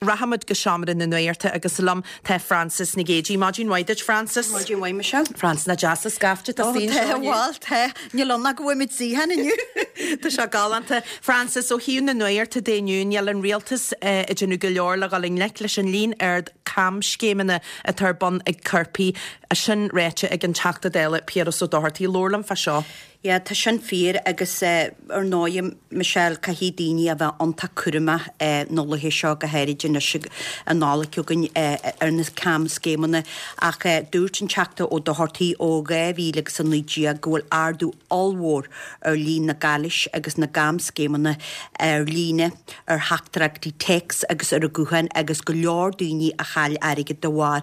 Rachaimid go seomra na nuachta agus liom tá Frances Nic Géadaigh. Maidin mhaith duit, Frances. Maidin mhaith, Michelle. Frances, nach deas an scaifte atá istigh anseo inniu. Tá, bhuel, tá. Níl ann ach go bhfuil muid suíocháin inniu. Tá sé galánta. Frances, ó thaobh na nuachta de inniu, níl an rialtas ag déanamh go leor le dhul i ngleic leis an líon ard camscéimeanna atá ar bun ag coirpigh. Sin ráite ag an Teachta Dála Piaras Ó Dochartaigh. Labhair liom fá seo. Yeah, tá sin fíor agus ar ndóigh, Michelle, caithfidh daoine a bheith iontach cúramach na laethe seo, go háirid anois an Nollaig chugainn ar na camscéimeanna. Ach dúirt an Teachta Ó Dochartaigh ó 2019 go bhfuil ardú ollmhór ar líon na gcailis agus na gcamscéimeanna ar líne, ar theachtaireachtaí téacs agus ar an ghuthán agus go leor daoine a chaill airgead de bharr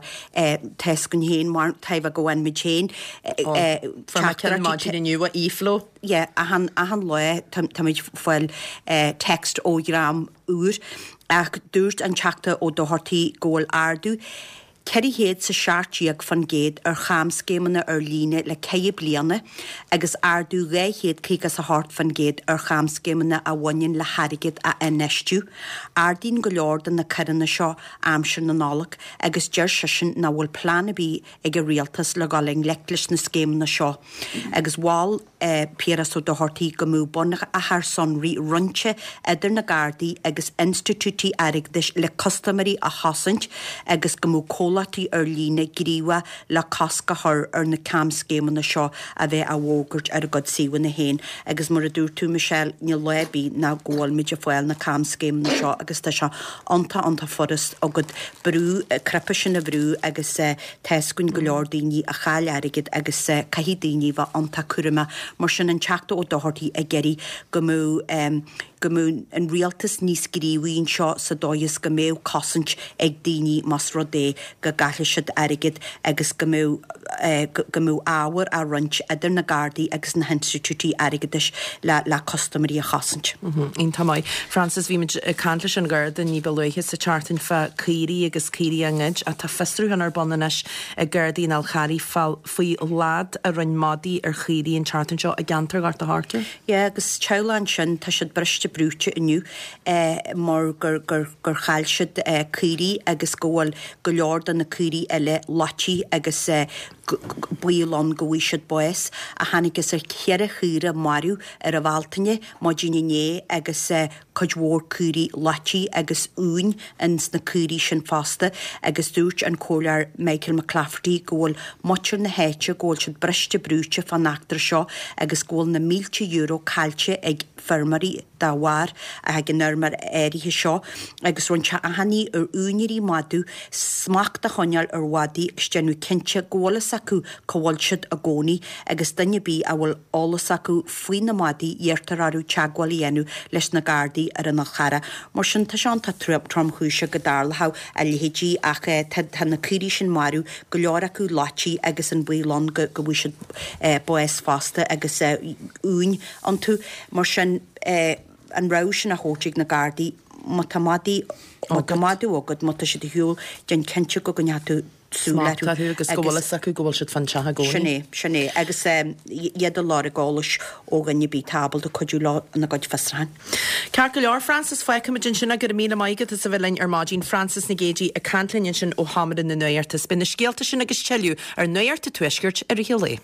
Tá's againn féin mar tá go bhfaigheann muid féin Fuair mé ceann maidin inniu ó eFlow. Yeah, achan, achan lá táimid ag fáil text ó dhream úr. Ach dúirt an Teachta Ó Dochartaigh go bhfuil ardú 417% ar chamscéimeanna ar líne le ceithre bliana agus ardú 258% ar chamscéimeanna a bhaineann le hairgead a infheistiú. Ardaíonn go leor de na coireanna seo aimsir na Nollag agus deir seisean nach bhfuil plean ar bith ag an rialtas le dhul i ngleic leis na scéimeanna seo agus mhol Piaras Ó Dochartaigh go mbeadh bunachar sonraí roinnte idir na Gardaí agus institiúidí airgeadais le custaiméirí a chosaint agus go mbeadh comhlachtaí ar líne gníomhach le cosc a chur ar na camscéimeanna seo a bheith á bhfógairt ar a gcuid suíomhanna féin agus mar a dúirt tú Michelle níl lá ar bith nach go bhfuil muid ag fáil na camscéimeanna seo agus tá sé iontach iontach furast agat brú, cnaipe sin a bhrú agus tá's againn go leor daoine a chaill airgead agus caithfidh daoine bheith iontach cúramach. Mar sin an Teachta Ó Dochartaigh ag iarraidh go mbeadh go mbeadh an rialtas níos gníomhaí anseo sa dóigh is go mbeadh cosaint ag daoine más rud é go gcaillfidh siad airgead agus go mbeadh go mbeadh ábhar á roinnt idir na Gardaí agus na hinstitiúidí airgeadais le le custaiméirí a chosaint. Iontach maith. Frances, bhí muid ag caint leis an Gharda ní ba luaithe sa tseachtain fá caoirigh agus caoirigh á ngoid ach tá fiosrúchán ar bun anois ag Gardaí an Fháil Charraigh faoi leaid a rinne madaí ar chaoirigh an tseachtain seo i gceantar Ghort a' Choirce. Yeah, agus teaghlach ansin, tá siad briste brúite inniu mar gur gur gur chaill siad caoirigh agus go bhfuil go leor de na caoirigh eile loitithe agus baol ann go bhfaighidh siad bás. A thángthas ar cheithre chaora marbh ar an Bhealtaine, maidin inné agus cuid mhór caoirigh loitithe agus uain ins na caoirigh sin fosta agus dúirt an Comhairleoir Michael McClafferty go bhfuil muintir na háite go bhfuil siad briste brúite fán eachtra seo agus go bhfuil na mílte euro caillte ag feirmeoirí dá bharr ag an fheirmeoir áirithe seo agus rinne sé achainí ar úinéirí madadh smacht a choinneáil ar mhadaí agus déanamh cinnte go bhfuil fhios acu cá bhfuil siad i gcónaí agus duine ar bith a bhfuil eolas acu faoi na madaí iarrtar orthu teagmháil a dhéanamh leis na Gardaí ar an Fhál Charrach. Mar sin tá sé iontach tromchúiseach go dtarlódh a leithéidí ach tá na caoirigh sin marbh, go leor acu loitithe agus an baol ann go bhfaighidh siad bás fosta agus uain iontu. Mar sin, an rabhadh sin á thabhairt ag na Gardaí, má tá madaí, má tá madadh agat, má tá siad ar shiúl, déan cinnte go gcoinneoidh tú súil orthu. Smacht orthu agus go bhfuil fhios acu go bhfuil siad fán teach i gcónaí. Sin é, sin é. Agus iad ag lorg eolais ó dhuine ar bith atá ábalta cuidiú leo ina gcuid fiosrúchán. Ceart go leor, Frances, fágfaimid ansin é. Go raibh míle maith agat as a bheith linn ar maidin. Frances Nic Géadaigh ag caint linn ansin ó Sheomra na Nuachta. Beidh na scéalta sin agus tuilleadh ar Nuacht an Tuaiscirt i rith an lae.